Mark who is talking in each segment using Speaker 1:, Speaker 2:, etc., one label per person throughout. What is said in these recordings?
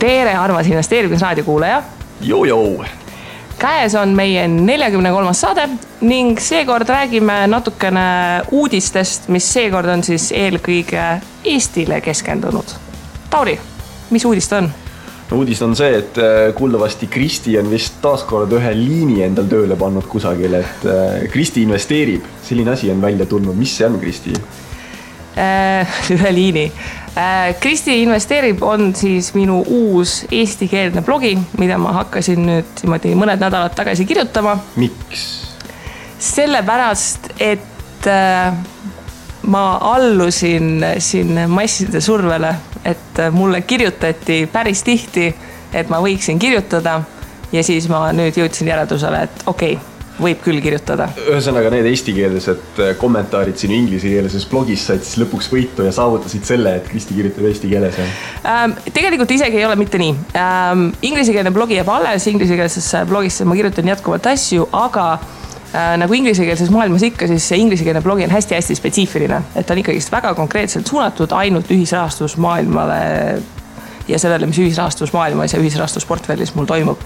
Speaker 1: Tere, armas investeerimisraadio kuulaja.
Speaker 2: Joo.
Speaker 1: Käes on meie 43. saade ning seekord räägime natukene uudistest, mis seekord on siis eelkõige Eestile keskendunud. Tauri, mis uudist on?
Speaker 2: No, uudis on see, et kuuldavasti Kristi on vist taaskord ühe liini endal tööle pannud kusagil, et Kristi investeerib. Selline asi on välja tulnud. Mis see on, Kristi?
Speaker 1: Ühe liini. Kristi investeerib on siis minu uus eestikeelne blogi, mida ma hakkasin nüüd mõned nädalad tagasi kirjutama.
Speaker 2: Miks?
Speaker 1: Sellepärast, et ma allusin siin masside survele, et mulle kirjutati päris tihti, et ma võiksin kirjutada ja siis ma nüüd jõudsin järeldusele, et okei, võib küll kirjutada.
Speaker 2: Ühesõnaga need eestikeelsed kommentaarid sinu inglisekeelses blogis said siis lõpuks võitu ja saavutasid selle, et Kristi kirjutab eesti keeles.
Speaker 1: Tegelikult isegi ei ole mitte nii. Inglisekeelne blogi jääb alles, inglisekeelses blogis ma kirjutan jätkuvalt asju, aga nagu inglisekeelses maailmas ikka, siis see inglisekeelne blogi on hästi-hästi spetsiifiline, et on ikkagi väga konkreetselt suunatud ainult ühisrahastus maailmale ja sellele, mis ühisrahastus maailmas ja ühisrahastus portfellis mul toimub.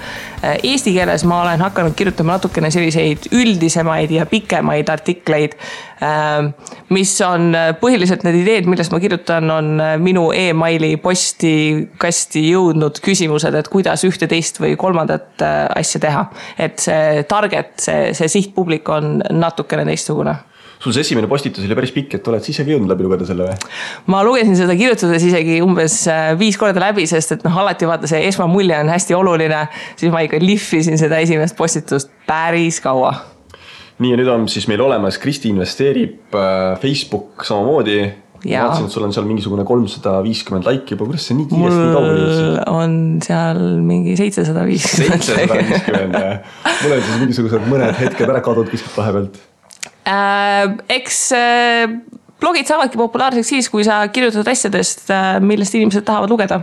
Speaker 1: Eesti keeles ma olen hakanud kirjutama natukene selliseid üldisemaid ja pikemaid artikleid, mis on põhiliselt need ideed, millest ma kirjutan, on minu e-maili posti kasti jõudnud küsimused, et kuidas ühte, teist või kolmandat asja teha. Et see target, see sihtpublik on natukene teistsugune.
Speaker 2: Sul see esimene postitus oli päris pikk, et oled siis isegi jõudnud läbi lugeda selle või?
Speaker 1: Ma lugesin seda kirjutades isegi umbes 5 korda läbi, sest et alati vaata see esmamulje on hästi oluline, siis ma ikka lihvisin seda esimest postitust päris kaua. Nii
Speaker 2: ja nüüd on siis meil olemas, Kristi investeerib, Facebook samamoodi.
Speaker 1: Ja.
Speaker 2: Vaatasin, et sul on seal mingisugune 350 laiki juba, kuidas see nii kiiresti nii kaugele jõudsid?
Speaker 1: Mul on seal mingi 750.
Speaker 2: 750, jah. Mul on siis mingisugused mõned hetked ära kadunud kuskilt vahepealt.
Speaker 1: Eks blogid saavadki populaarseks siis, kui sa kirjutad asjadest, millest inimesed tahavad lugeda.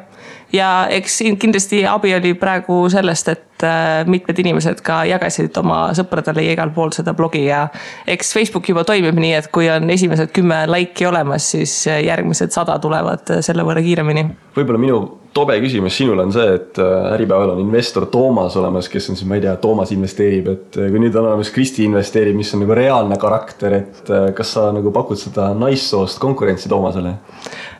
Speaker 1: Ja eks kindlasti abi oli praegu sellest, et mitmed inimesed ka jagasid oma sõpradele ja igal pool seda blogi ja eks Facebook juba toimib nii, et kui on esimesed 10 laiki olemas, siis järgmised 100 tulevad selle võrra kiiremini.
Speaker 2: Võib-olla minu tobe küsimus sinul on see, et Äripäeval on investor Toomas olemas, kes on siis, ma ei tea, Toomas investeerib, et kui nüüd on olemas Kristi investeerib, mis on nagu reaalne karakter, et kas sa nagu pakud seda naissoost konkurentsi Toomasele?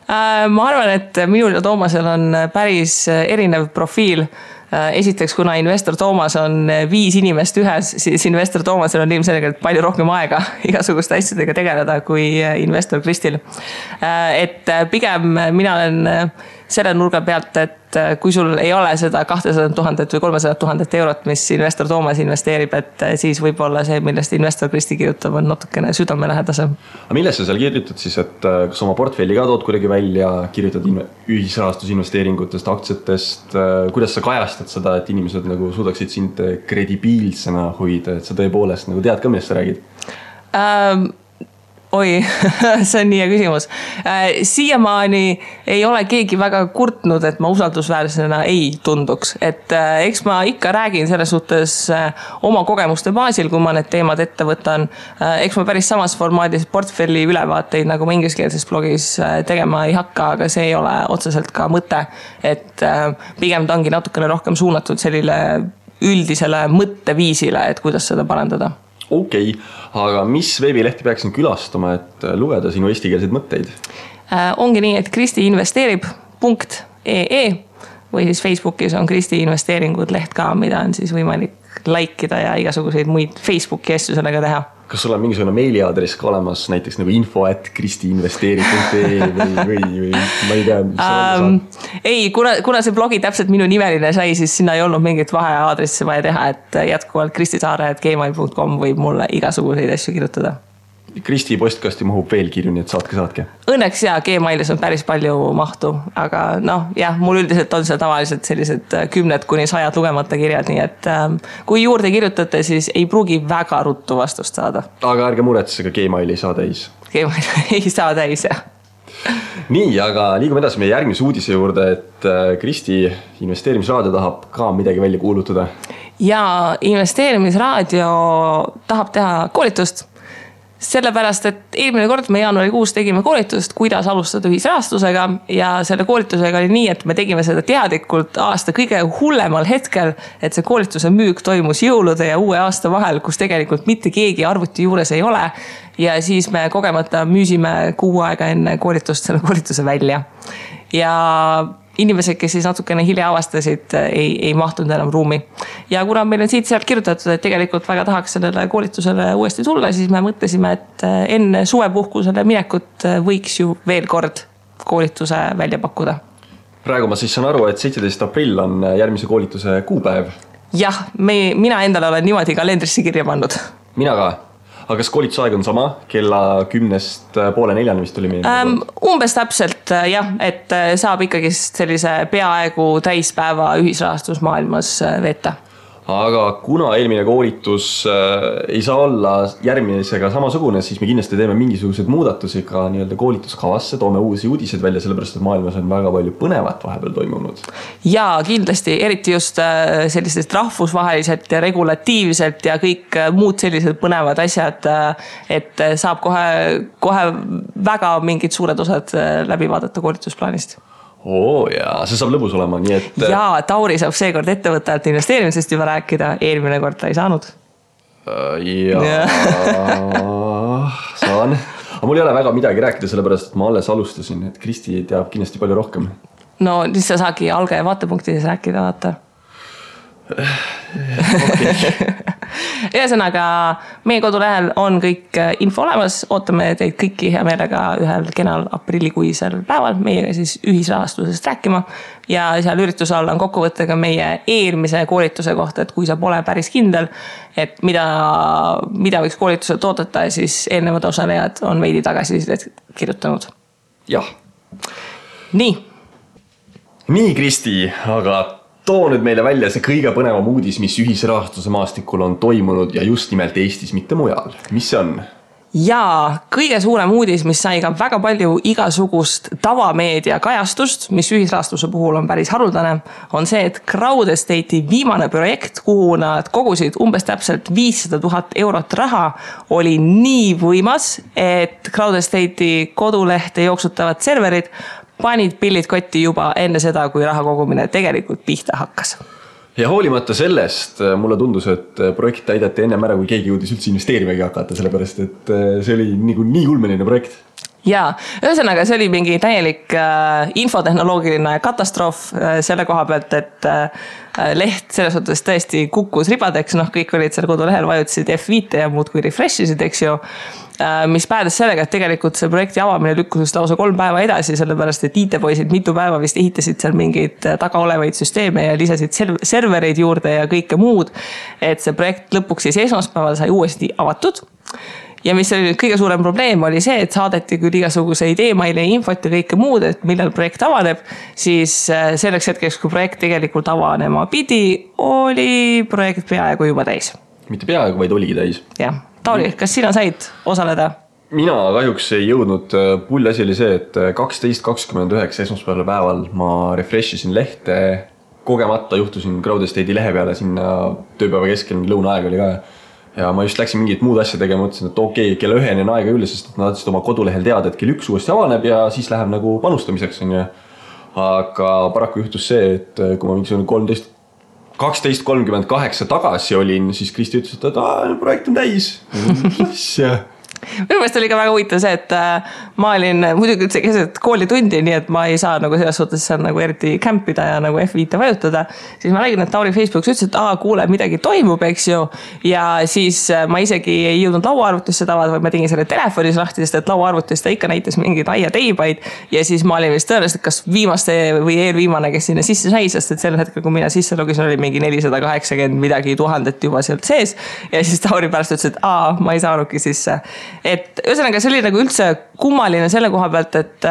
Speaker 1: Ma arvan, et minul ja Toomasel on päris erinev profiil. Esiteks, kuna investor Toomas on 5 inimest ühes, siis investor Toomasel on ilmselgelt palju rohkem aega igasuguste asjadega tegeleda kui investor Kristil. Et pigem mina olen selle nurga pealt, et kui sul ei ole seda 200 000 või 300 000 eurot, mis investor Toomas investeerib, et siis võib-olla see, millest investor Kristi kirjutab, on natukene südamelähedasem.
Speaker 2: Aga millest sa seal kirjutad siis, et kas oma portfelli ka tood kuidagi välja, kirjutad ühisrahastusinvesteeringutest, aktsiatest, kuidas sa kajastad seda, et inimesed nagu suudaksid sind kredibiilsena hoida, et sa tõepoolest nagu tead ka, millest sa räägid?
Speaker 1: Oi, see on nii hea küsimus. Siiamaani ei ole keegi väga kurtnud, et ma usaldusväärsena ei tunduks. Et eks ma ikka räägin selles suhtes oma kogemuste baasil, kui ma need teemad ette võtan. Eks ma päris samas formaadis portfelli ülevaateid, nagu ma ingliskeelses blogis tegema ei hakka, aga see ei ole otseselt ka mõte. Et pigem ta ongi natukene rohkem suunatud sellile üldisele mõtteviisile, et kuidas seda parandada.
Speaker 2: Okei, aga mis veebilehti peaksin külastama, et lugeda sinu eestikeelseid mõtteid?
Speaker 1: Ongi nii, et kristiinvesteerib.ee või siis Facebookis on Kristi investeeringud leht ka, mida on siis võimalik laikida ja igasuguseid muid Facebooki asju sellega teha.
Speaker 2: Kas sul on mingisugune meiliaadress ka olemas, näiteks nagu info@kristiinvesteerib.ee või ma ei tea, mis
Speaker 1: ei, kuna see blogi täpselt minu nimeline sai, siis sinna ei olnud mingit vaheaadressi vaja teha, et jätkuvalt kristisaare@gmail.com võib mulle igasuguseid asju kirjutada.
Speaker 2: Kristi postkasti mahub veel kirju, nii et saatke.
Speaker 1: Õnneks ja Gmailis on päris palju mahtu, aga mul üldiselt on seal tavaliselt sellised 10–100 lugemata kirjad, nii et kui juurde kirjutate, siis ei pruugi väga ruttu vastust saada.
Speaker 2: Aga ärge muretse, ka Gmail ei saa täis.
Speaker 1: Gmail ei saa täis, jah.
Speaker 2: Nii, aga liigume edasi meie järgmise uudise juurde, et Kristi investeerimisraadio tahab ka midagi välja kuulutada.
Speaker 1: Ja investeerimisraadio tahab teha koolitust. Sellepärast, et eelmine kord me jaanuarikuus tegime koolitust, kuidas alustada ühisrahastusega ja selle koolitusega oli nii, et me tegime seda teadlikult aasta kõige hullemal hetkel, et see koolituse müük toimus jõulude ja uue aasta vahel, kus tegelikult mitte keegi arvuti juures ei ole ja siis me kogemata müüsime kuu aega enne koolitust selle koolituse välja ja inimesed, kes siis natukene hilja avastasid, ei mahtunud enam ruumi. Ja kuna meil on siit sealt kirjutatud, et tegelikult väga tahaks sellele koolitusele uuesti tulla, siis me mõtlesime, et enne suvepuhkusele minekut võiks ju veel kord koolituse välja pakkuda.
Speaker 2: Praegu ma siis saan aru, et 17. aprill on järgmise koolituse kuupäev.
Speaker 1: Jah, mina endale olen niimoodi kalendrisse kirja pannud.
Speaker 2: Mina ka. Aga kas koolitusaeg on sama? Kella 10:30 vist tuli meie?
Speaker 1: Umbes täpselt jah, et saab ikkagi sellise peaaegu täispäeva ühisrahastusmaailmas veeta.
Speaker 2: Aga kuna eelmine koolitus ei saa olla järgmisega samasugune, siis me kindlasti teeme mingisugused muudatusi ka nii-öelda koolituskavasse, toome uusi uudiseid välja, sellepärast et maailmas on väga palju põnevat vahepeal toimunud.
Speaker 1: Ja kindlasti, eriti just sellisest rahvusvaheliselt ja regulatiivselt ja kõik muud sellised põnevad asjad, et saab kohe väga mingid suured osad läbi vaadata koolitusplaanist.
Speaker 2: Ja see saab lõbus olema, nii et...
Speaker 1: Ja Tauri saab seekord ettevõttajalt investeerimisest juba rääkida, eelmine kord ta ei saanud.
Speaker 2: Saan. Aga mul ei ole väga midagi rääkida, sellepärast, et ma alles alustasin, et Kristi teab kindlasti palju rohkem.
Speaker 1: No, siis sa saagi algaja vaatepunktides rääkida, vaata. Ühesõnaga, meie kodulehel on kõik info olemas, ootame teid kõiki hea meelega ühel kenal aprillikuisel päeval meiega siis ühisrahastusest rääkima ja seal ürituse all on kokkuvõttega meie eelmise koolituse kohta, et kui sa pole päris kindel, et mida võiks koolituselt oodata, siis eelnevad osalejad on veidi tagasisidet kirjutanud.
Speaker 2: Jah.
Speaker 1: Nii,
Speaker 2: Kristi, aga too nüüd meile välja see kõige põnevam uudis, mis ühisrahastuse maastikul on toimunud ja just nimelt Eestis, mitte mujal. Mis see on?
Speaker 1: Ja kõige suurem uudis, mis sai ka väga palju igasugust tavameedia kajastust, mis ühisrahastuse puhul on päris haruldane, on see, et Crowd Estate'i viimane projekt, kuhu nad kogusid umbes täpselt 500 000 eurot raha, oli nii võimas, et Crowd Estate'i kodulehte jooksutavad serverid panid pillid kotti juba enne seda, kui raha kogumine tegelikult pihta hakkas.
Speaker 2: Ja hoolimata sellest mulle tundus, et projekt täideti ennem ära, kui keegi jõudis üldse investeerimegi hakata, sellepärast et see oli nii ulmeline projekt.
Speaker 1: Ja, ühesõnaga see oli mingi täielik infotehnoloogiline katastroof selle koha pealt, et leht selles suhtes tõesti kukkus ribadeks, kõik olid seal kodulehel, vajutasid F5 ja muud kui refreshisid, eks ju, mis päädes sellega, et tegelikult see projekti avamine lükkus lausa 3 päeva edasi, sellepärast et IT-poisid mitu päeva vist ehitasid seal mingeid taga olevaid süsteeme ja lisasid servereid juurde ja kõike muud, et see projekt lõpuks siis esmaspäeval sai uuesti avatud. Ja mis oli kõige suurem probleem oli see, et saadeti küll igasuguseid e-maili ja infot ja kõike muud, et millal projekt avaneb, siis selleks hetkeks, kui projekt tegelikult avanema pidi, oli projekt peaaegu juba täis.
Speaker 2: Mitte peaaegu, vaid oligi täis.
Speaker 1: Jah. Tauri, kas sina said osaleda?
Speaker 2: Mina kahjuks ei jõudnud. Pull asi oli see, et 12.29 esmaspäeval päeval ma refreshisin lehte, kogemata juhtusin Crowd Estate'i lehe peale sinna tööpäeva keskel, lõunaaeg oli ka. Ja ma just läksin mingit muud asja tegema, mõtlesin, et okei, kella 1 on aega üle, sest nad oma kodulehel teada, et kell 1 uuesti avaneb ja siis läheb nagu panustamiseks. Aga paraku juhtus see, et kui ma mingisugune 12.38 tagasi olin, siis Kristi ütles, et projekt on täis. Minu
Speaker 1: meelest oli ka väga huvitav see, et ma olin muidugi üldse keset koolitundi, nii et ma ei saa nagu selles suhtes nagu eriti kämpida ja nagu F5 vajutada. Siis ma nägin, et Tauri Facebookis ütles, et kuule, midagi toimub, eks ju. Ja siis ma isegi ei jõudnud lauaarvutisse tavada, vaid ma tegin selle telefonis lahti, sest et lauaarvutist ta ikka näitas mingeid aiateibaid. Ja siis ma olin vist tõenäoliselt kas viimaste või eelviimane, kes sinna sisse sai, sest et sel hetkel, kui mina sisse logisin, oli mingi 480 midagi tuhandet juba sealt sees. Ja siis Tauri pärast ütles, et ma ei saanudki sisse. Et ühesõnaga see oli nagu üldse kummaline selle koha pealt, et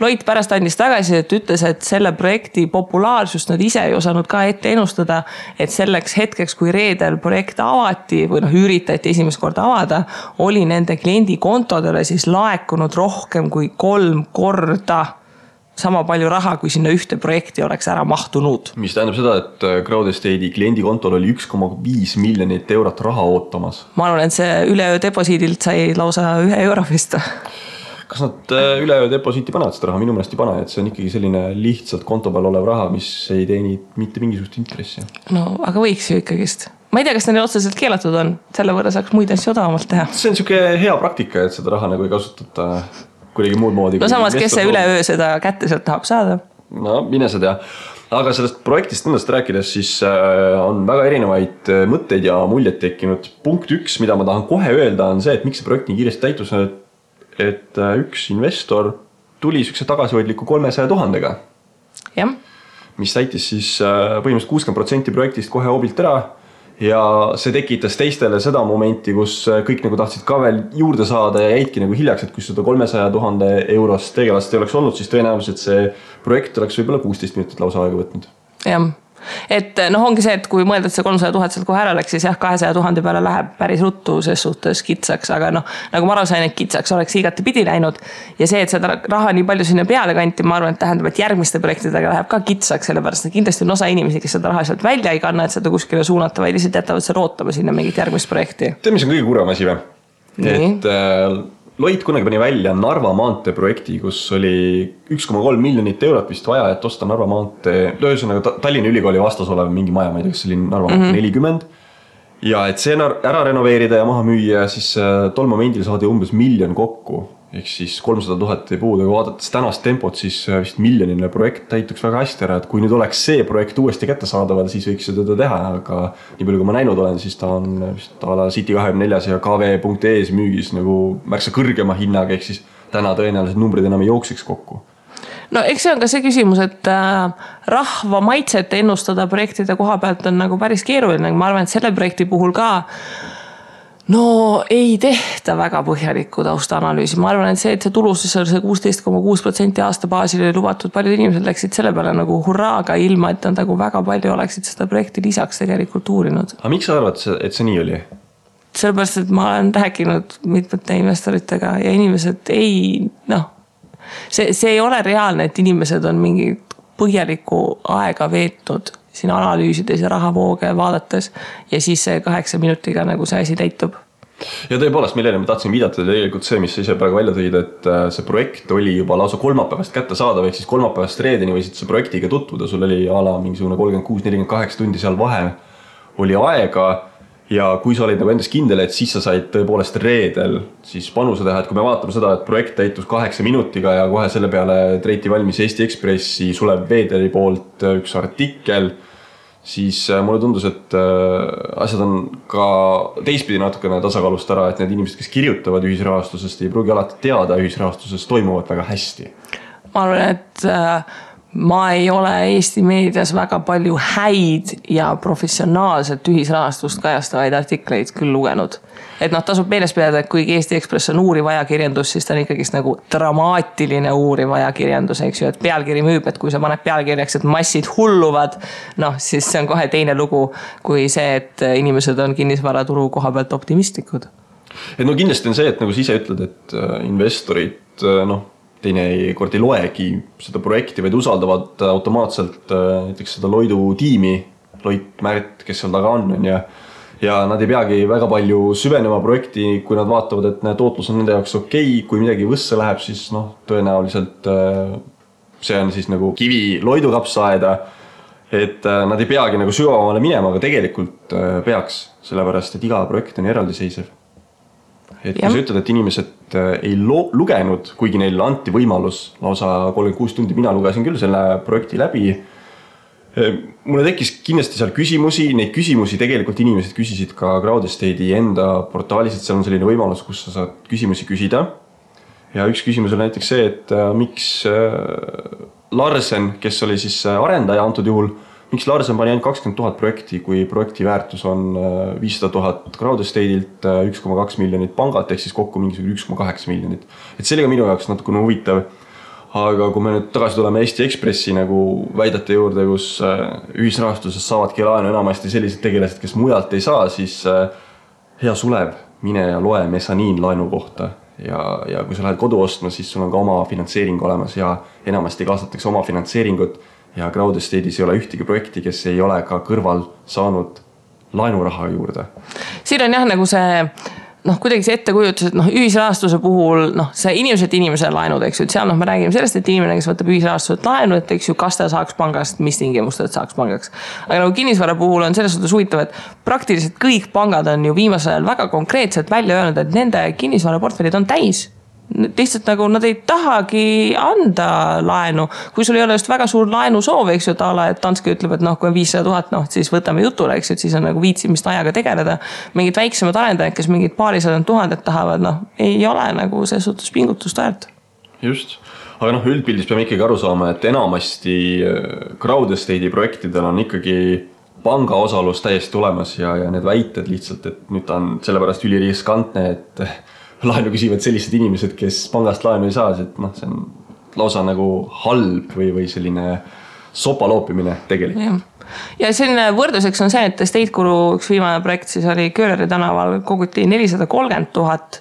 Speaker 1: Loit pärast andis tagasi, et ütles, et selle projekti populaarsust nad ise ei osanud ka ette ennustada, et selleks hetkeks, kui reedel projekt avati või üritati esimest korda avada, oli nende kliendi kontodele siis laekunud rohkem kui 3 korda sama palju raha, kui sinna ühte projekti oleks ära mahtunud.
Speaker 2: Mis tähendab seda, et Crowdestate'i kliendikontol oli 1,5 miljonit eurot raha ootamas.
Speaker 1: Ma arvan, et see üleöö deposiidilt sai lausa 1 euro vist.
Speaker 2: Kas nad üleöö deposiiti panevad seda raha? Minu meelest ei pane, et see on ikkagi selline lihtsalt konto peal olev raha, mis ei teeni mitte mingisugust intressi.
Speaker 1: No, aga võiks ju ikkagist. Ma ei tea, kas neil otseselt keelatud on, selle võrra saaks muid asju odavamalt teha.
Speaker 2: See on siuke hea praktika, et seda raha nagu ei kasutata kuidagi muud moodi.
Speaker 1: No samas, kes see üleöö seda kätte sealt tahab saada?
Speaker 2: No, mine sa tea. Aga sellest projektist endast rääkides, siis on väga erinevaid mõtteid ja muljed tekkinud. Punkt 1, mida ma tahan kohe öelda, on see, et miks see projekt nii kiiresti täitus, et üks investor tuli sükse tagasihoidliku 300 000-ga.
Speaker 1: Jah.
Speaker 2: Mis täitis siis põhimõtteliselt 60% projektist kohe hoobilt ära. Ja see tekitas teistele seda momenti, kus kõik nagu tahtsid ka veel juurde saada ja jäidki nagu hiljaks, et kui seda 300 000 eurost tegelast ei oleks olnud, siis tõenäoliselt see projekt oleks võib-olla 16 minutit lausa aega võtnud.
Speaker 1: Jah. Et ongi see, et kui mõelda, et see 300 000 sealt kohe ära läks, siis 200 000 peale läheb päris ruttu ses suhtes kitsaks, aga nagu ma aru sain, et kitsaks oleks igati pidi läinud ja see, et seda raha nii palju sinna peale kanti, ma arvan, et tähendab, et järgmiste projektidega läheb ka kitsaks, sellepärast et kindlasti on osa inimesi, kes seda raha sealt välja ei kanna, et seda kuskile suunata, vaid lihtsalt jätavad see rootama sinna mingit järgmist projekti.
Speaker 2: Tead, mis on kõige kurem asi või? Et Loit kunagi pani välja Narva maantee projekti, kus oli 1,3 miljonit eurot vist vaja, et osta Narva maantee, ühesõnaga Tallinna Ülikooli vastas olev mingi maja, ma ei tea, kas see oli Narva maantee 40. Ja et see ära renoveerida ja maha müüa, siis tol momendil saadi umbes 1 miljon kokku. Ehk siis 300 000 ei puudu, aga vaadates tänast tempot, siis vist miljonine projekt täituks väga hästi ära, et kui nüüd oleks see projekt uuesti kätte saadaval, siis võiks seda teha, aga nii palju kui ma näinud olen, siis ta on vist ala City24 ja KV.ES müügis nagu märksa kõrgema hinnaga, ehk siis täna tõenäoliselt numbrid enam ei jooksiks kokku.
Speaker 1: No eks see on ka see küsimus, et rahva maitset ennustada projektide koha pealt on nagu päris keeruline, ma arvan, et selle projekti puhul ka ei tehta väga põhjalikku taustaanalüüsi. Ma arvan, et see tulusus on see 16,6% aasta baasil oli lubatud. Paljud inimesed läksid selle peale nagu hurraaga ilma, et nad nagu väga palju oleksid seda projekti lisaks tegelikult uurinud.
Speaker 2: Aga miks sa arvad, et see nii oli?
Speaker 1: Sellepärast, et ma olen rääkinud mitmete investoritega ja inimesed see ei ole reaalne, et inimesed on mingi põhjalikku aega veetnud siin analüüsides ja rahavooge vaadates ja siis see 8 minutiga nagu see asi täitub.
Speaker 2: Ja tõepoolest, millele ma tahtsin viidata tegelikult see, mis ise praegu välja tõid, et see projekt oli juba lausa kolmapäevast kätte saadav, ehk siis kolmapäevast reedeni võisid see projektiga tutvuda, sul oli ala mingisugune 36-48 tundi seal vahe oli aega ja kui sa olid nagu endas kindel, et siis sa said tõepoolest reedel siis panuse teha, et kui me vaatame seda, et projekt täitus 8 minutiga ja kohe selle peale treiti valmis Eesti Ekspressi Sulev Veederi poolt üks artikkel, siis mulle tundus, et asjad on ka teistpidi natukene tasakaalust ära, et need inimesed, kes kirjutavad ühisrahastusest, ei pruugi alati teada ühisrahastusest toimuvad väga hästi.
Speaker 1: Ma arvan, et ma ei ole Eesti meedias väga palju häid ja professionaalselt ühisrahastust kajastavaid artikleid küll lugenud. Et tasub meeles pidada, et kuigi Eesti Ekspress on uuriv ajakirjandus, siis ta on ikkagist nagu dramaatiline uuriv ajakirjandus, eks ju, et pealkiri müüb, et kui sa paned pealkirjaks, et massid hulluvad, siis see on kohe teine lugu kui see, et inimesed on kinnisvaraturu koha pealt optimistlikud.
Speaker 2: Et kindlasti on see, et nagu sa ise ütled, et investorid, teine kord ei loegi seda projekti, vaid usaldavad automaatselt näiteks seda Loidu tiimi, Loit Märt, kes seal taga on ja nad ei peagi väga palju süvenema projekti, kui nad vaatavad, et tootlus on nende jaoks okei, kui midagi võsse läheb, siis tõenäoliselt see on siis nagu kivi Loidu kapsaaeda, et nad ei peagi nagu sügavamale minema, aga tegelikult peaks, sellepärast, et iga projekt on eraldiseisev. Et kui sa ütled, et inimesed ei lugenud, kuigi neil anti võimalus lausa 36 tundi, mina lugesin küll selle projekti läbi. Mulle tekkis kindlasti seal küsimusi, neid küsimusi tegelikult inimesed küsisid ka Crowdestate'i enda portaalis, et seal on selline võimalus, kus sa saad küsimusi küsida. Ja üks küsimus oli näiteks see, et miks Larsen, kes oli siis arendaja antud juhul, miks Larsen pani ainult 20 000 projekti, kui projekti väärtus on 500 000 Crowdestate'ilt, 1,2 miljonit pangat, ehk siis kokku mingisugune 1,8 miljonit. Et see oli ka minu jaoks natukene huvitav. Aga kui me nüüd tagasi tuleme Eesti Ekspressi nagu väidete juurde, kus ühisrahastuses saavadki laenu enamasti sellised tegelased, kes mujalt ei saa, siis hea Sulev, mine ja loe Mezzanin laenu kohta. ja kui sa lähed kodu ostma, siis sul on ka oma finantseering olemas ja enamasti kaasatakse oma finantseeringut ja Crowd Estate'is ei ole ühtegi projekti, kes ei ole ka kõrval saanud laenuraha juurde.
Speaker 1: Siin on jah nagu see kuidagi see ettekujutus, et ühisrahastuse puhul see inimesed laenud, eks ju, et seal me räägime sellest, et inimene, kes võtab ühisrahastuselt laenu, et eks ju, kas ta saaks pangast, mis tingimustel saaks pangaks. Aga nagu kinnisvara puhul on selles suhtes huvitav, et praktiliselt kõik pangad on ju viimasel ajal väga konkreetselt välja öelnud, et nende kinnisvaraportfellid on täis. Lihtsalt nagu nad ei tahagi anda laenu, kui sul ei ole just väga suur laenusoov, eks ju, et Danske ütleb, et kui on 500 000, siis võtame jutule, eks ju, et siis on nagu viitsimist ajaga tegeleda. Mingid väiksemad arendajad, kes mingid paarisadad tuhanded tahavad, ei ole nagu see suhtes pingutust väärt.
Speaker 2: Just, aga üldpildis peame ikkagi aru saama, et enamasti Crowd Estate'i projektidel on ikkagi panga osalus täiesti olemas ja need väited lihtsalt, et nüüd ta on sellepärast üliriskantne, et laenu küsivad sellised inimesed, kes pangast laenu ei saa, et see on lausa nagu halb või selline sopaloopimine tegelikult.
Speaker 1: Ja selline võrdluseks on see, et Estate Guru üks viimane projekt siis oli Kööleri tänaval, koguti 430 000,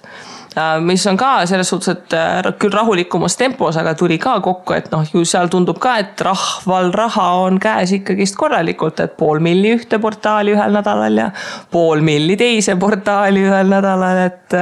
Speaker 1: mis on ka selles suhtes, et küll rahulikumas tempos, aga tuli ka kokku, et ju seal tundub ka, et rahval raha on käes ikkagist korralikult, et 500 000 ühte portaali ühel nädalal ja 500 000 teise portaali ühel nädalal, et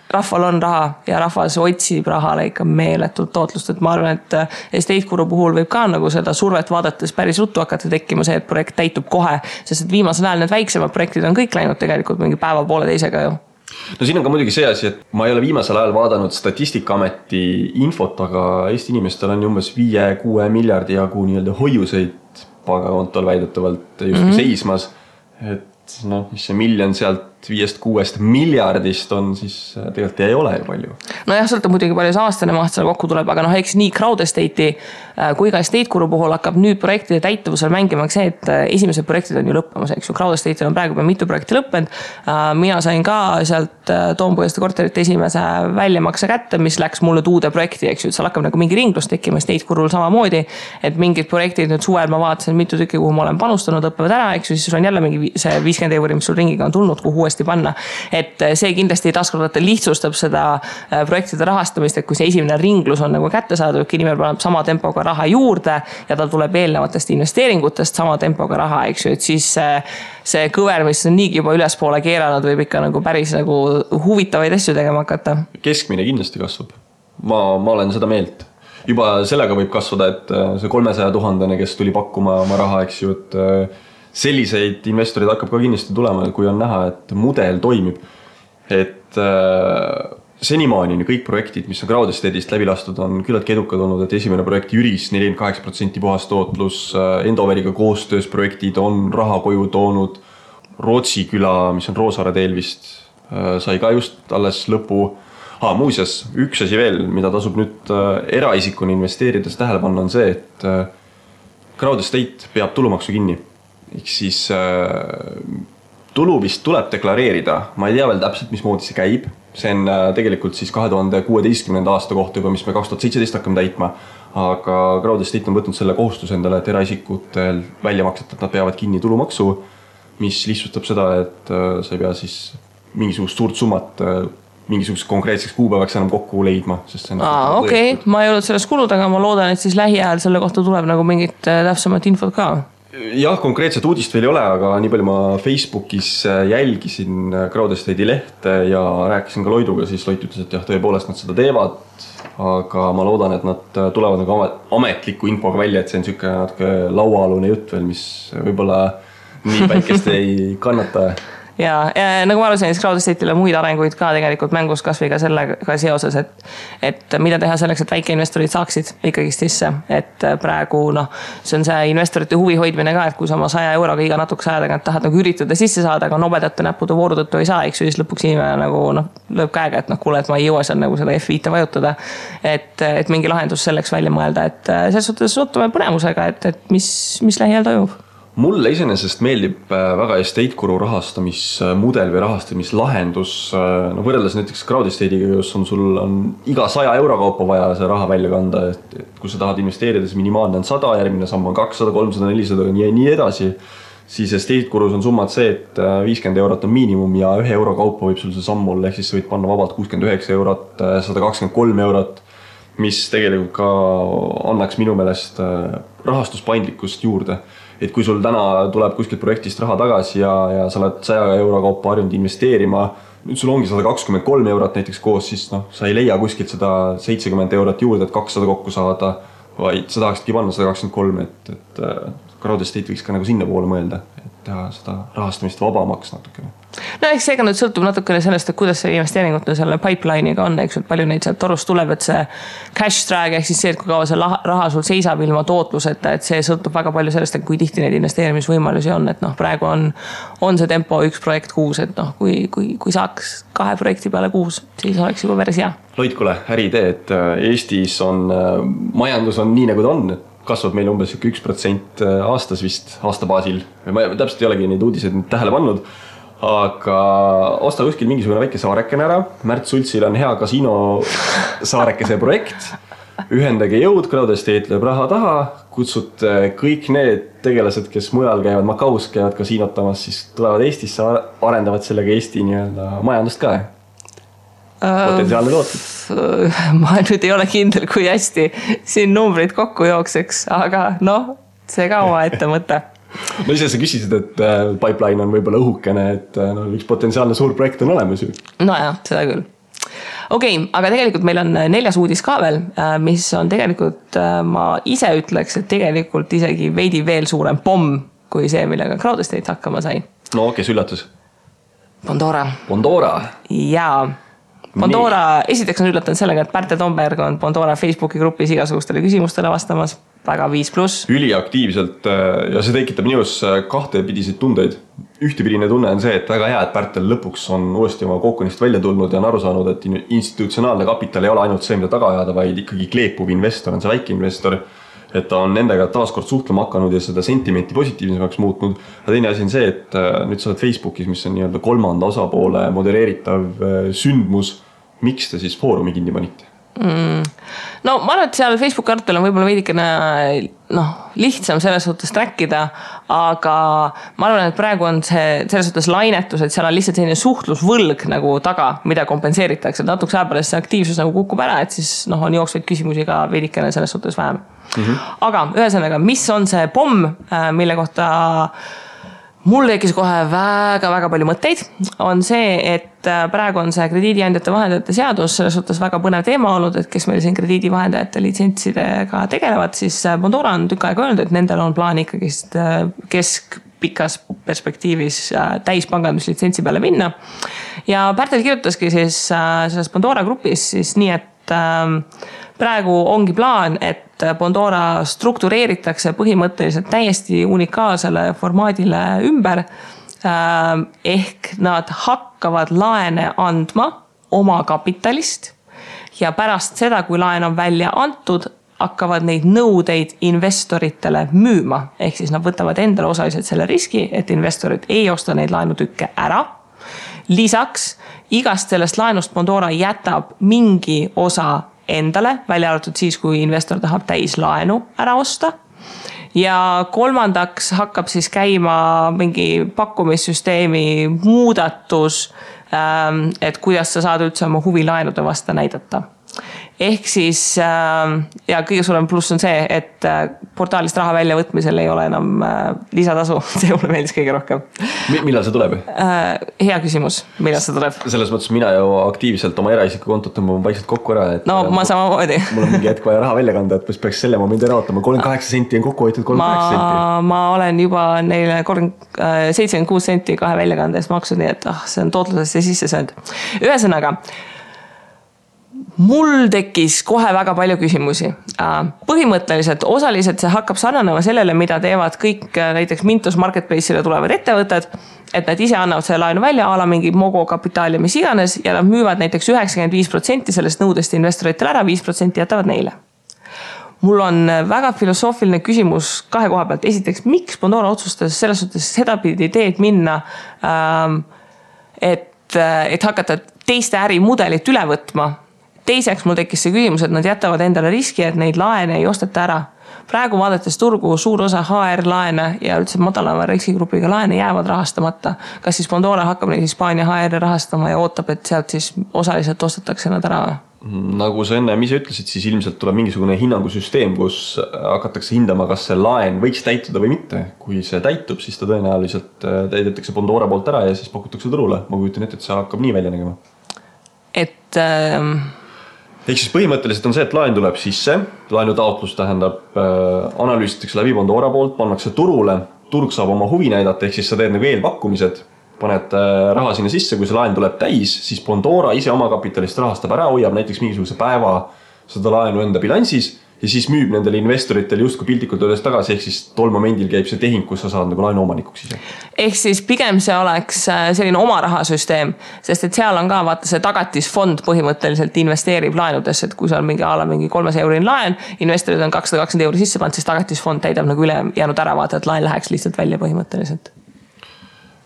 Speaker 1: rahval on raha ja rahvas otsib rahale ikka meeletult tootlust, et ma arvan, et Estate Guru puhul võib ka nagu seda survet vaadates päris ruttu hakata tekkima see, et projekt täitub kohe, sest et viimasel ajal need väiksemad projektid on kõik läinud tegelikult mingi päeva poole teisega ju.
Speaker 2: No siin on ka muidugi see asi, et ma ei ole viimasel ajal vaadanud Statistikaameti infot, aga Eesti inimestel on umbes 5-6 miljardi jagu hoiuseid pangakontol väidetavalt justkui seismas, et mis see miljon sealt 5-6 miljardist on, siis tegelikult ei ole ju palju.
Speaker 1: Jah, sõltab muidugi palju see aastane maht seal kokku tuleb, aga eks nii Crowd Estate'i kui ka Estate Guru puhul hakkab nüüd projektide täituvusel mängima see, et esimesed projektid on ju lõppemas, eks ju. Crowd Estate'il on praegu mitu projekti lõppenud. Mina sain ka sealt Toompõhjaste korterite esimese väljamakse kätte, mis läks mulle uude projekti, eks ju, et seal hakkab nagu mingi ringlus tekkima Estate Gurul samamoodi, et mingid projektid nüüd suvel ma vaatasin mitu tükki, kuhu ma olen panustanud, õppevad ära, eks ju, siis on jälle mingi see 50 €, mis sul ringiga on tulnud, kuhu uuesti panna. Et see kindlasti taaskordata lihtsustab seda projektide rahastamist, et kui see esimene ringlus on nagu kätte saadud, inimene paneb sama tempoga raha juurde ja ta tuleb eelnevatest investeeringutest sama tempoga raha, eks ju, et siis see kõver, mis on niigi juba ülespoole keeranud, võib ikka nagu päris nagu huvitavaid asju tegema hakata.
Speaker 2: Keskmine kindlasti kasvab. Ma olen seda meelt. Juba sellega võib kasvada, et see 300 000, kes tuli pakkuma oma raha, eks ju, et selliseid investorid hakkab ka kindlasti tulema, kui on näha, et mudel toimib. Et senimaani kõik projektid, mis on Crowd Estate'ist läbi lastud, on küllaltki edukad olnud, et esimene projekt Jüris 48% puhas tootlus, Endoveriga koostöös projektid on raha koju toonud, Rootsi küla, mis on Roosaare teel vist, sai ka just alles lõpu. Muuseas, üks asi veel, mida tasub nüüd eraisikuni investeerides tähele panna, on see, et Crowd Estate peab tulumaksu kinni. Ehk siis tulu vist tuleb deklareerida, ma ei tea veel täpselt, mismoodi see käib. See on tegelikult siis 2016. aasta kohta juba, mis me 2017 hakkame täitma. Aga Crowd Estate on võtnud selle kohustuse endale, et eraisikutel väljamaksed, et nad peavad kinni tulumaksu, mis lihtsustab seda, et sa ei pea siis mingisugust suurt summat mingisuguseks konkreetseks kuupäevaks enam kokku leidma.
Speaker 1: Okei, ma ei olnud sellest kulud, aga ma loodan, et siis lähiajal selle kohta tuleb nagu mingit täpsemat infot ka.
Speaker 2: Jah, konkreetset uudist veel ei ole, aga nii palju ma Facebookis jälgisin Crowd Estate'i lehte ja rääkisin ka Loiduga, siis Loit ütles, et jah, tõepoolest nad seda teevad, aga ma loodan, et nad tulevad nagu ametliku infoga välja, et see on selline natuke lauaalune jutt veel, mis võib-olla nii päikest ei kannata.
Speaker 1: Ja nagu ma arusin, siis Crowd Estate'ile muid arenguid ka tegelikult mängus kasvõi ka sellega seoses, et mida teha selleks, et väikeinvestorid saaksid ikkagi sisse, et praegu see on see investorite huvi hoidmine ka, et kui sa oma 100 € iga natukese aja tagant tahad nagu üritada sisse saada, aga nobedate näppude vooru tõttu ei saa, eks ju, siis lõpuks inimene nagu lööb käega, et kuule, et ma ei jõua seal nagu seda F5 vajutada, et mingi lahendus selleks välja mõelda, et selles suhtes ootame põnemusega, et mis lähiajal toimub.
Speaker 2: Mulle iseenesest meeldib väga Estate Guru rahastamismudel või rahastamislahendus. Võrreldes näiteks Crowd Estate'iga, kus sul on iga 100 € kaupa vaja see raha välja kanda, et kui sa tahad investeerida, siis minimaalne on 100, järgmine samm on 200, 300, 400 ja nii edasi. siis estate kulus on summad see, et 50 eurot on miinimum ja 1 euro kaupa võib sul see samm olla, ehk siis sa võid panna vabalt 69 eurot, 123 eurot, mis tegelikult ka annaks minu meelest rahastuspaindlikkust juurde. Et kui sul täna tuleb kuskilt projektist raha tagasi ja sa oled 100 euro kaupa harjunud investeerima, nüüd sul ongi 123 eurot näiteks koos, siis sa ei leia kuskilt seda 70 eurot juurde, et 200 kokku saada, vaid sa tahaksidki panna 123, et crowd estate võiks ka nagu sinna poole mõelda, et teha seda rahastamist vabamaks natukene.
Speaker 1: No eks seega nüüd sõltub natukene sellest, et kuidas see investeeringute selle pipeline'iga on, eks, et palju neid sealt torust tuleb, et see cash drag, ehk siis see, et kui kaua see raha sul seisab ilma tootluseta, et see sõltub väga palju sellest, et kui tihti neid investeerimisvõimalusi on, et praegu on see tempo 1 projekt kuus, et kui saaks 2 projekti peale kuus, siis oleks juba päris hea.
Speaker 2: Loid, kuule, äriidee, et Eestis on, majandus on nii nagu ta on, kasvab meil umbes 1% aastas vist aastabaasil. Ma täpselt ei olegi neid uudiseid tähele pannud, aga osta kuskil mingisugune väike saarekene ära. Märt Sultsil on hea kasiino saarekese projekt. Ühendage jõud, crowd estate lööb raha taha, kutsud kõik need tegelased, kes mujal käivad, Macaus käivad kasiinotamas, siis tulevad Eestisse, arendavad sellega Eesti majandust ka. Potentsiaalne tootud.
Speaker 1: Ma nüüd ei ole kindel, kui hästi siin numbrid kokku jookseks, aga see ka oma ette mõte.
Speaker 2: No ise sa küsisid, et pipeline on võib-olla õhukene, et üks potentsiaalne suur projekt on olemas ju.
Speaker 1: Nojah, seda küll. Okei, aga tegelikult meil on 4. uudis ka veel, mis on tegelikult, ma ise ütleks, et tegelikult isegi veidi veel suurem pomm kui see, millega crowd estate hakkama sai.
Speaker 2: No kes üllatus?
Speaker 1: Pandora. Jaa. Pandora, esiteks on üllatanud sellega, et Pärtel Tomberg on Pandora Facebooki grupis igasugustele küsimustele vastamas, väga 5+.
Speaker 2: Üliaktiivselt ja see tekitab minus kahtepidiseid tundeid. Ühtepidine tunne on see, et väga hea, et Pärtel lõpuks on uuesti oma kookonist välja tulnud ja on aru saanud, et institutsionaalne kapital ei ole ainult see, mida taga ajada, vaid ikkagi kleepuv investor on see väike investor, et ta on nendega taaskord suhtlema hakanud ja seda sentimenti positiivsemaks muutnud. Ja teine asi on see, et nüüd sa oled Facebookis, mis on nii-öelda 3. osapoole modereeritav sündmus. Miks te siis foorumi kinni panite?
Speaker 1: No ma arvan, et seal Facebook arvel on võib-olla veidikene lihtsam selles suhtes trackida, aga ma arvan, et praegu on see selles suhtes lainetus, et seal on lihtsalt selline suhtlusvõlg nagu taga, mida kompenseeritakse. Natuks ajapärast see aktiivsus nagu kukub ära, et siis on jooksvaid küsimusi ka veidikene selles suhtes vähem. Aga ühesõnaga, mis on see pomm, mille kohta mul tekkis kohe väga palju mõtteid, on see, et praegu on see krediidiandjate vahendajate seadus selles suhtes väga põnev teema olnud, et kes meil siin krediidivahendajate litsentsidega tegelevad, siis Pandora on tükk aega öelnud, et nendel on plaan ikkagi keskpikas perspektiivis täispanganduslitsentsi peale minna. Ja Pärtel kirjutaski siis selles Pandora grupis siis nii, et praegu ongi plaan, et Pandora struktureeritakse põhimõtteliselt täiesti unikaalsele formaadile ümber. Ehk nad hakkavad laene andma oma kapitalist ja pärast seda, kui laen on välja antud, hakkavad neid nõudeid investoritele müüma. Ehk siis nad võtavad endale osaliselt selle riski, et investorid ei osta neid laenutükke ära. Lisaks, igast sellest laenust Pandora jätab mingi osa endale, välja arvatud siis, kui investor tahab täis laenu ära osta. Ja kolmandaks hakkab siis käima mingi pakkumissüsteemi muudatus, et kuidas sa saad üldse oma huvilaenude vasta näidata. Ehk siis, ja kõige suurem pluss on see, et portaalist raha välja võtmisel ei ole enam lisatasu. See mulle meeldis kõige rohkem.
Speaker 2: Millal see tuleb?
Speaker 1: Hea küsimus, millal see tuleb?
Speaker 2: Selles mõttes mina ju aktiivselt oma eraisiku kontot tõmbama vaikselt kokku ära. Et
Speaker 1: ma samamoodi.
Speaker 2: Mul on mingi hetk vaja raha välja kanda, et peaks selle momendi ära ootama. 38 senti on kokku hoitud 38 senti.
Speaker 1: Ma olen juba neile 76 senti 2 väljakandes maksud, nii et see on tootlusesse sisse söönud. Ühesõnaga, mul tekkis kohe väga palju küsimusi. Põhimõtteliselt osaliselt see hakkab sarnanema sellele, mida teevad kõik näiteks Mintos Marketplace'ile tulevad ettevõtted, et nad ise annavad selle laenu välja, ala mingi Mogo kapitaali, mis iganes, ja nad müüvad näiteks 95% sellest nõudest investoritele ära, 5% jätavad neile. Mul on väga filosoofiline küsimus 2 koha pealt. Esiteks, miks Pandora otsustas selles suhtes seda pidi teed minna, et hakata teiste ärimudelit üle võtma. Teiseks mul tekkis see küsimus, et nad jätavad endale riski, et neid laene ei osteta ära. praegu vaadates turgu suur osa HR-laene ja üldse madalama riskigrupiga laene jäävad rahastamata. Kas siis Pandora hakkab neid Hispaania HR-e rahastama ja ootab, et sealt siis osaliselt ostetakse nad ära?
Speaker 2: Nagu sa enne ise ütlesid, siis ilmselt tuleb mingisugune hinnangusüsteem, kus hakatakse hindama, kas see laen võiks täituda või mitte. Kui see täitub, siis ta tõenäoliselt täidetakse Pandora poolt ära ja siis pakutakse turule. Ma kujutan ette, et see hakkab nii välja nägema. Ehk siis põhimõtteliselt on see, et laen tuleb sisse, laenu taotlus tähendab, analüüsitakse läbi Pandora poolt, pannakse turule, turg saab oma huvi näidata, ehk siis sa teed nagu eelpakkumised, paned raha sinna sisse, kui see laen tuleb täis, siis Pandora ise oma kapitalist rahastab ära, hoiab näiteks mingisuguse päeva seda laenu enda bilansis ja siis müüb nendele investoritele justkui piltlikult öeldes tagasi, ehk siis tol momendil käib see tehing, kus sa saad nagu laenu omanikuks ise.
Speaker 1: Ehk siis pigem see oleks selline oma rahasüsteem, sest et seal on ka vaata see tagatisfond põhimõtteliselt investeerib laenudesse, et kui seal mingi 300 eurin laen, investorid on 220 euri sisse pannud, siis tagatisfond täidab nagu üle jäänud ära vaata, et laen läheks lihtsalt välja põhimõtteliselt.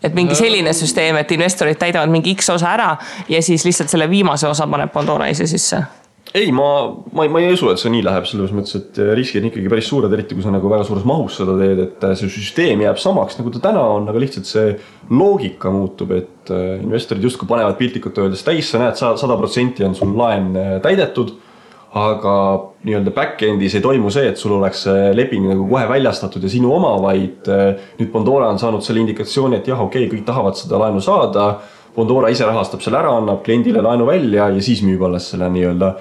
Speaker 1: Et mingi selline süsteem, et investorid täidavad mingi X osa ära ja siis lihtsalt selle viimase osa paneb Pandora ise sisse.
Speaker 2: Ei, ma ei usu, et see nii läheb selles mõttes, et riskid on ikkagi päris suured, eriti kui sa nagu väga suures mahus seda teed, et see süsteem jääb samaks, nagu ta täna on, aga lihtsalt see loogika muutub, et investorid justkui panevad piltlikult öeldes täis, sa näed 100% on sul laen täidetud, aga nii-öelda back-endis ei toimu see, et sul oleks leping nagu kohe väljastatud ja sinu oma, vaid nüüd Pandora on saanud selle indikatsiooni, et jah, okei, kõik tahavad seda laenu saada, Pandora ise rahastab selle ära, annab kliendile laenu välja ja siis müüb alles selle nii-öelda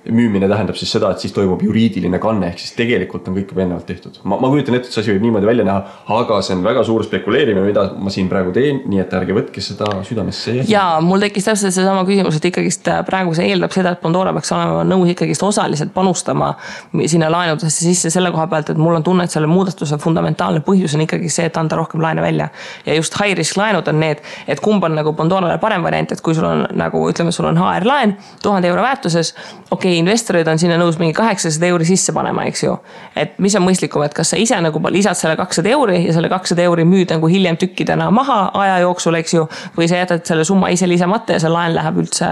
Speaker 2: müümine tähendab siis seda, et siis toimub juriidiline kanne, ehk siis tegelikult on kõik juba ennevalt tehtud. Ma kujutan ette, et see asi võib niimoodi välja näha, aga see on väga suur spekuleerimine, mida ma siin praegu teen, nii et ärge võtke seda südamesse.
Speaker 1: Ja mul tekkis täpselt see sama küsimus, et ikkagist praegu see eeldab seda, et Pandora peaks olema nõus ikkagist osaliselt panustama sinna laenudesse sisse selle koha pealt, et mul on tunne, et selle muudatuse fundamentaalne põhjus on ikkagi see, et anda rohkem laene välja. Ja just high risk laenud on need, et kumb on nagu Pandorale parem variant, et kui sul on nagu, ütleme, sul on HR laen 1000 euro väärtuses, okei, investorid on sinna nõus mingi 800 euri sisse panema, eks ju. Et mis on mõistlikum, et kas sa ise nagu lisad selle 200 euri ja selle 200 euri müüd nagu hiljem tükkidena maha aja jooksul, eks ju, või sa jätad selle summa ise lisamata ja see laen läheb üldse,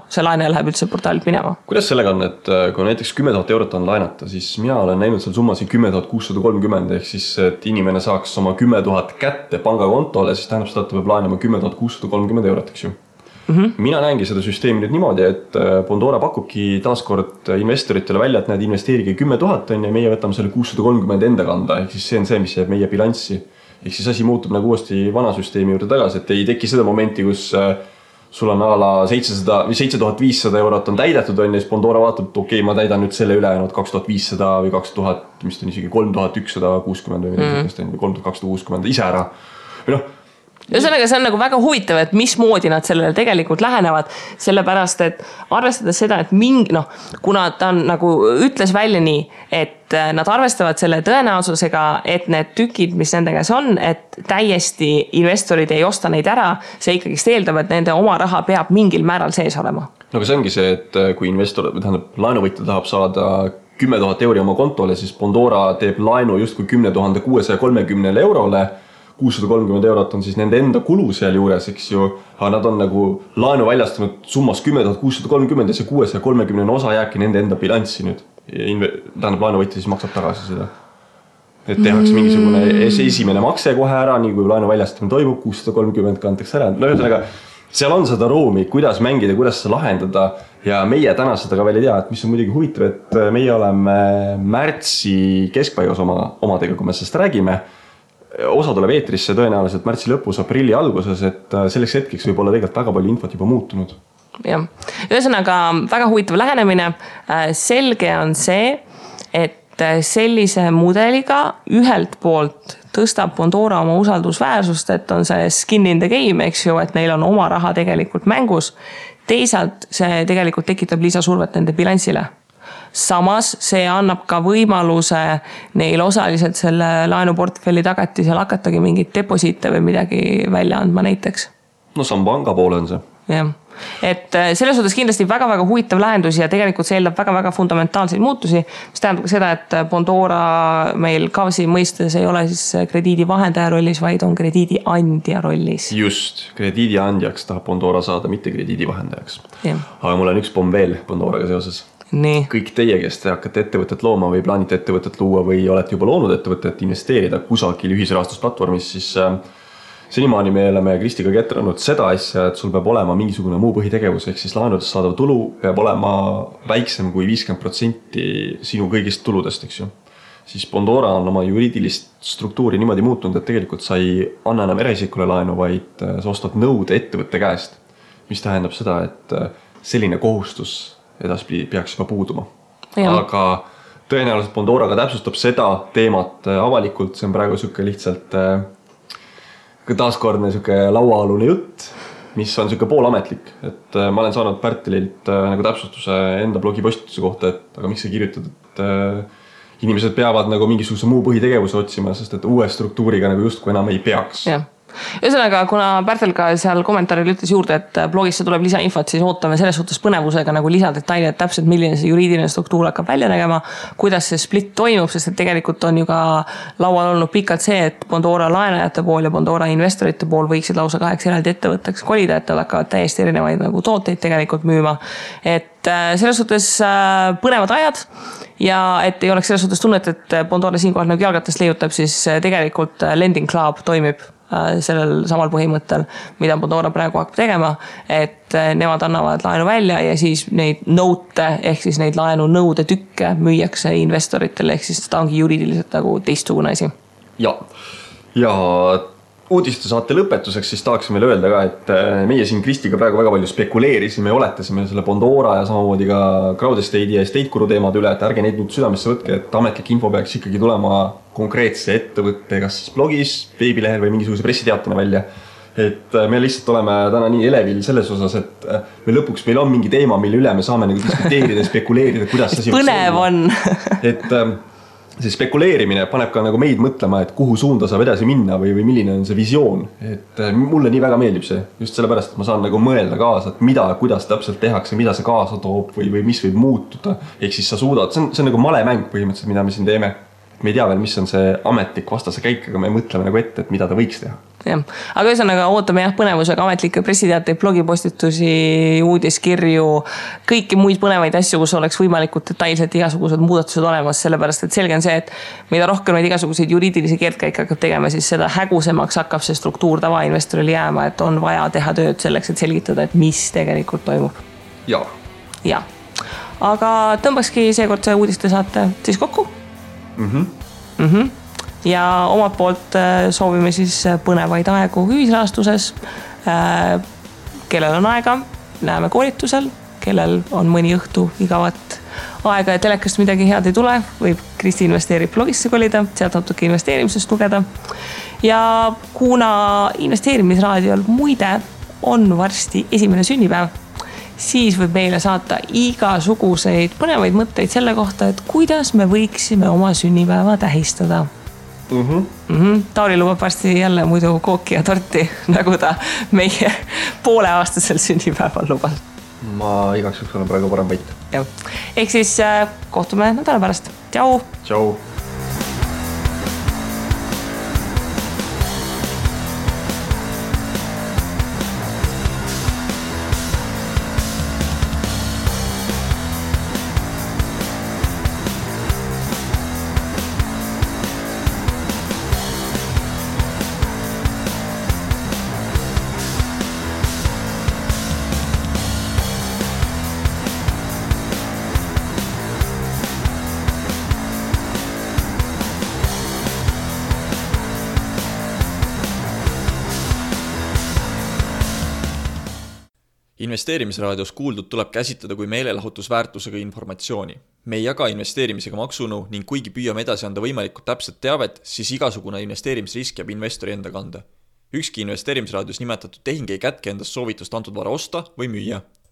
Speaker 1: see laene läheb üldse portaalilt minema.
Speaker 2: Kuidas sellega on, et kui näiteks 10 000 eurot on laenata, siis mina olen näinud seal summasid 10 630, ehk siis, et inimene saaks oma 10 000 kätte pangakontole, siis tähendab seda, et ta peab laenama 10 630 eurot, eks ju. Mina näengi seda süsteemi nüüd niimoodi, et Pandora pakubki taaskord investoritele välja, et näed investeerige 10 000 on ja meie võtame selle 630 enda kanda, ehk siis see on see, mis jääb meie bilanssi. Ehk siis asi muutub nagu uuesti vana süsteemi juurde tagasi, et ei teki seda momenti, kus sul on ala 700 või 7500 eurot on täidetud on ja siis Pandora vaatab, et okei, ma täidan nüüd selle ülejäänud 2500 või 2000, mis on isegi 3160 või 3260 ise ära. Või
Speaker 1: Ühesõnaga, see on nagu väga huvitav, et mismoodi nad sellele tegelikult lähenevad, sellepärast, et arvestades seda, et kuna ta on nagu ütles välja nii, et nad arvestavad selle tõenäosusega, et need tükid, mis nende käes on, et täiesti investorid ei osta neid ära, see ikkagi eeldab, et nende oma raha peab mingil määral sees olema.
Speaker 2: No see ongi see, et kui investor, laenuvõtja tahab saada 10 000 euri oma kontole, siis Pandora teeb laenu justkui 10 630 eurole, 630 eurot on siis nende enda kulu seal juures, eks ju, aga nad on nagu laenu väljastanud summas 10 630 ja see 630 osa jääbki nende enda bilanssi nüüd. Tähendab, laenuvõtja siis maksab tagasi seda. Et tehakse mingisugune esimene makse kohe ära, nii kui laenu väljastamine toimub, 630 kantakse ära. Ühesõnaga, seal on seda ruumi, kuidas mängida, kuidas seda lahendada ja meie täna seda ka veel ei tea, et mis on muidugi huvitav, et meie oleme märtsi keskpaigas omadega, kui me sellest räägime. Osa tuleb eetrisse tõenäoliselt märtsi lõpus, aprilli alguses, et selleks hetkeks võib olla tegelikult väga palju infot juba muutunud.
Speaker 1: Jah. Ühesõnaga väga huvitav lähenemine. Selge on see, et sellise mudeliga ühelt poolt tõstab Pandora oma usaldusväärsust, et on see skin in the game, eks ju, et neil on oma raha tegelikult mängus. Teisalt see tegelikult tekitab lisasurvet nende bilansile. Samas see annab ka võimaluse neil osaliselt selle laenuportfelli tagatisel hakatagi mingit deposiite või midagi välja andma näiteks.
Speaker 2: No see on panga poole on see.
Speaker 1: Jah. Et selles suhtes kindlasti väga-väga huvitav lahendus ja tegelikult see eeldab väga-väga fundamentaalseid muutusi, mis tähendab ka seda, et Pandora meil KAVS-i mõistes ei ole siis krediidivahendaja rollis, vaid on krediidiandja rollis.
Speaker 2: Just, krediidiandjaks tahab Pandora saada, mitte krediidivahendajaks.
Speaker 1: Ja.
Speaker 2: Aga mul on üks pomm veel Pandoraga seoses.
Speaker 1: Nii.
Speaker 2: Kõik teie, kes te hakkate ettevõtet looma või plaanite ettevõtet luua või olete juba loonud ettevõtet, investeerida kusagil ühisrahastusplatvormis, siis senimaani me oleme Kristiga ketranud seda asja, et sul peab olema mingisugune muu põhitegevus, ehk siis laenudest saadav tulu peab olema väiksem kui 50% sinu kõigist tuludest, eks ju. Siis Bondora on oma juriidilist struktuuri niimoodi muutunud, et tegelikult sa ei anna enam eraisikule laenu, vaid sa ostad nõude ettevõtte käest, mis tähendab seda, et selline kohustus edaspidi peaks juba puuduma. Aga tõenäoliselt Bondora ka täpsustab seda teemat avalikult, see on praegu siuke lihtsalt taaskordne siuke lauaalune jutt, mis on siuke poolametlik, et ma olen saanud Pärtelilt nagu täpsustuse enda blogipostituse kohta, et aga miks sa kirjutad, et inimesed peavad nagu mingisuguse muu põhitegevuse otsima, sest et uue struktuuriga nagu justkui enam ei peaks.
Speaker 1: Ühesõnaga, kuna Pärtel ka seal kommentaaril ütles juurde, et blogisse tuleb lisainfot, siis ootame selles suhtes põnevusega nagu lisadetaili, et täpselt milline see juriidiline struktuur hakkab välja nägema, kuidas see split toimub, sest et tegelikult on ju ka laual olnud pikalt see, et Bondora laenajate pool ja Bondora investorite pool võiksid lausa 2 eraldi ettevõtteks kolida, et nad hakkavad täiesti erinevaid nagu tooteid tegelikult müüma. Et selles suhtes põnevad ajad ja et ei oleks selles suhtes tunnet, et Bondora siinkohal nagu jalgatest leiutab, siis tegelikult Lending Club toimib sellel samal põhimõttel, mida Bondora praegu hakkab tegema, et nemad annavad laenu välja ja siis neid note ehk siis neid laenu nõude tükke müüakse investoritele, ehk siis ta ongi juriidiliselt nagu teistsugune asi.
Speaker 2: Ja uudiste saate lõpetuseks siis tahaksin veel öelda ka, et meie siin Kristiga praegu väga palju spekuleerisime ja oletasime selle Bondora ja samamoodi ka Crowdestate'i ja Estate-Guru teemad üle, et ärge neid nüüd südamesse võtke, et ametlik info peaks ikkagi tulema konkreetse ettevõtte, kas siis blogis, veebilehel või mingisuguse pressiteatena välja. Et me lihtsalt oleme täna nii elevil selles osas, et meil on mingi teema, mille üle me saame nagu diskuteerida ja spekuleerida, kuidas see
Speaker 1: põnev on.
Speaker 2: Et see spekuleerimine paneb ka nagu meid mõtlema, et kuhu suunda saab edasi minna või milline on see visioon. Et mulle nii väga meeldib see, just sellepärast, et ma saan nagu mõelda kaasa, et kuidas täpselt tehakse, mida see kaasa toob või mis võib muutuda. Ehk siis sa suudad, see on nagu malemäng põhimõtteliselt, mida me siin teeme. Me ei tea veel, mis on see ametlik vastase käik, aga me mõtleme nagu ette, et mida ta võiks teha.
Speaker 1: Aga ühesõnaga ootame prõnevusega ametlikke pressiteateid, blogipostitusi, uudiskirju, kõiki muid põnevaid asju, kus oleks võimalikult detailselt igasugused muudatused olemas, sellepärast et selge on see, et mida rohkem neid igasuguseid juriidilisi keerdkäike hakkab tegema, siis seda hägusemaks hakkab see struktuur tavainvestoril jääma, et on vaja teha tööd selleks, et selgitada, et mis tegelikult toimub. Ja. Aga tõmbakski seekord see uudiste saate siis kokku. Ja omalt poolt soovime siis põnevaid aegu ühisrahastuses. Kellel on aega, näeme koolitusel, kellel on mõni õhtu igavat aega ja telekast midagi head ei tule, võib Kristi investeerib blogisse kolida, sealt natuke investeerimisest lugeda. Ja kuna investeerimisraadiol muide on varsti 1. sünnipäev, siis võib meile saata igasuguseid põnevaid mõtteid selle kohta, et kuidas me võiksime oma sünnipäeva tähistada. Tauri lubab varsti jälle muidu kooki ja torti, nagu ta meie pooleaastasel sünnipäeval lubas.
Speaker 2: Ma igaks juks olen praegu parem võit.
Speaker 1: Ehk siis kohtume nädala pärast. Tšau!
Speaker 2: Tšau!
Speaker 3: Investeerimisraadios kuuldud tuleb käsitleda kui meelelahutusväärtusega informatsiooni. Me ei jaga investeerimisega maksunu ning kuigi püüame edasi anda võimalikult täpset teavet, siis igasugune investeerimisrisk jääb investori enda kanda. Ükski investeerimisraadios nimetatud tehing ei kätke endast soovitust antud vara osta või müüa.